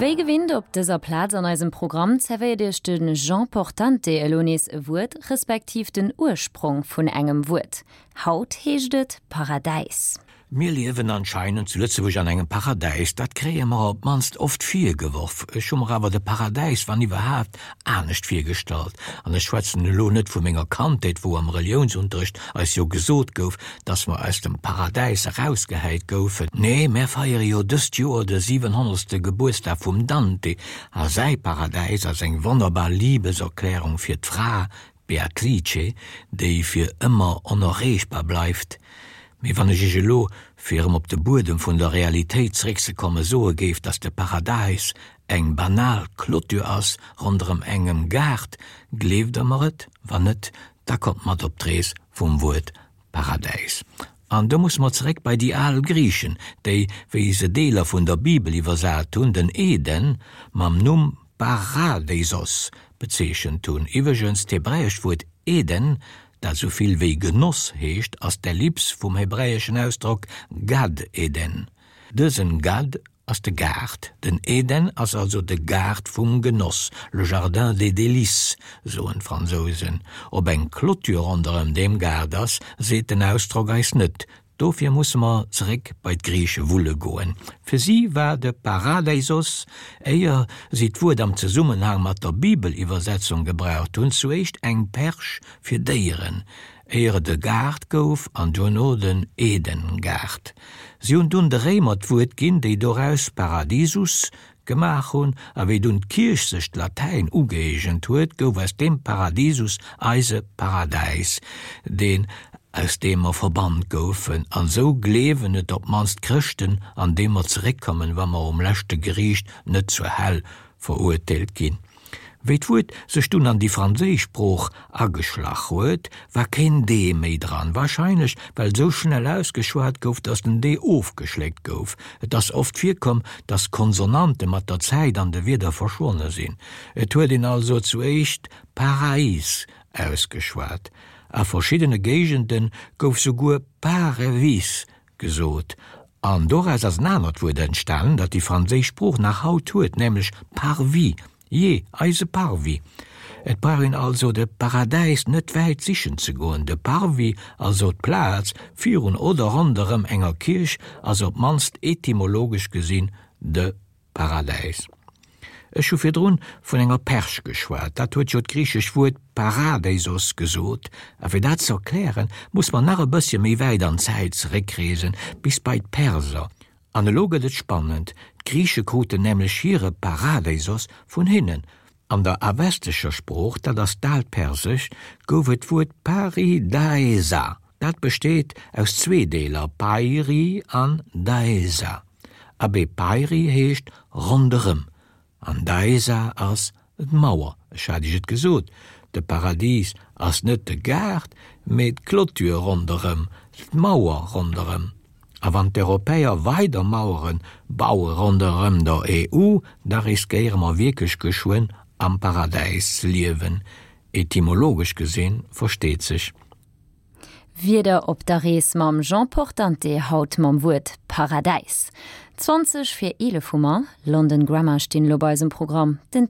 Wéi gewinnt op dëser Plaz an eisem Programm zerwéiert Iech de Jean Portante elo nees e Wuert, respektiv den Ursprong vun engem Wuert. Haut heescht et Paradäis. Mir liewen anscheinend zu Lëtzebuerg an engem Paradäis, dat kréie mer op d'mannst oft virgeworf. Ech hu mer awer de Paradäis, wann iwwerhaapt, anescht virgestallt. An ech schwätzen elo net vu menger Kandheet, wou am Reliounsunterrecht eis jo gesot gouf, dass mer aus dem Paradäis erausgehäit goufen. Nee, mär feiere jo dëst Joer de siwenhonnertste Gebuertsdag vum Dante, a säi Paradäis ass eng wonnerbar Libeserklärung fir d'Fra, d'Beatrice, déi fir ëmmer onerreechbar bleift. Mee wann ech iech elo, fir erëm op de Buedem vun der Realitéit zeréckzekommen, soe géif, dass de Paradäis eng banal Clôture ass ronderëm engem Gaart, gleeft der mer et? Wann net, da kommt mat op d'Rees vum Wuert Paradäis. An do musse mer zeréck bei déi al Griichen, déi, wéi se Deeler vun der Bibel iwwersat hunn, den Eden mam Numm Paradeisos bezeechent hunn. Iwwregens, d'hebräescht Wuert Eden, dat esou vill wéi Genoss heescht, ass d'Ellips vum hebräeschen Ausdrock Gad Eden. Dësen Gad ass de Gaart. Den Eden ass also de Gaart vum Genoss, le jardin des délices, soen d'Fransousen. Ob eng Clôture ronderëm deem Gaart ass, seet den Ausdrock eis net. Dofir musse mer zeréck bei d'Griiche wulle goen. Fir si war de Paradeisos, éier si d'Wuert am Zesummenhang mat der Bibeliwwersetzung gebraucht hunn, zuéischt eng Perch fir Déieren, éier et e Gaart gouf an duerno den Eden-Gaart. Si hunn dunn de Réimer d'Wuert ginn, déi doraus Paradisus gemaach hunn, a wéi dunn d'Kierch sech d'Latäin ugëeegent huet, gouf aus deem Paradisus eise Paradäis, deen, aus deem mer verbannt goufen, an esou gleewen et op d'mannst d'Chrëschten, an dee mer zeréckkommen, wa mer um leschte Geriicht net zur Häll verurteelt ginn. Wéi d'Wuert sech dunn an déi franséisch Sprooch ageschlach huet, war keen d méi dran, warscheinlech well sou schnell ausgeschwat gouf, datt den d ofgeschléckt gouf. Et ass oft virkomm, datt Konsonante mat der Zäit an de Wierder verschwonne sinn. Et huet een also zuéischt Paraïs ausgeschwat. A verschiddene Géigende gouf souguer Parevis gesot, an doraus ass en anert Wuert entstanen, dat déi franséisch Sprooch nach haut huet, nämlech Parvis, jee, eise Parvis. Et brauch een also de Paradäis net wäit sichen ze goen, de Parvis, also d'Plaz virun oder ronderëm enger Kierch, ass op d'mannst etymologesch gesinn de Paradäis. Ech hu virdrun vun enger Perch geschwat, dat huet jo d'griichesch Wuert paradeisos gesot, a fir dat ze erklären, muss mer nach e bëssche méi wäit an d'Zäit zeréckreesen, bis bei d'Perser. An elo gëtt et spannend, d'Griiche kruten nämlech hire paradeisos vun hinnen. An der avestescher Sprooch, dat ass d'Aalt Persescht, gouf et d'Wuert paridaesa. Dat besteet aus zwee Deeler, pairi an daesa. Abee, pairi heescht ronderëm an daesa ass d'Mauer. Ech hat iech et gesot, de Paradis ass net de Gaart, mee d'Clôture ronderëm, d'Mauer ronderëm. A wann d'Europäer weider Mauere baue ronderëm der EU, da riskéiere mer wierklech geschwënn am Paradäis ze liewen, etymologesch gesinn, versteet sech. Wieder op der Rees mam Jean Portante, haut mam Wuert Paradäis. 20 vir 11 hu mer. London Grammar stinn elo bei eisem Programm. Den.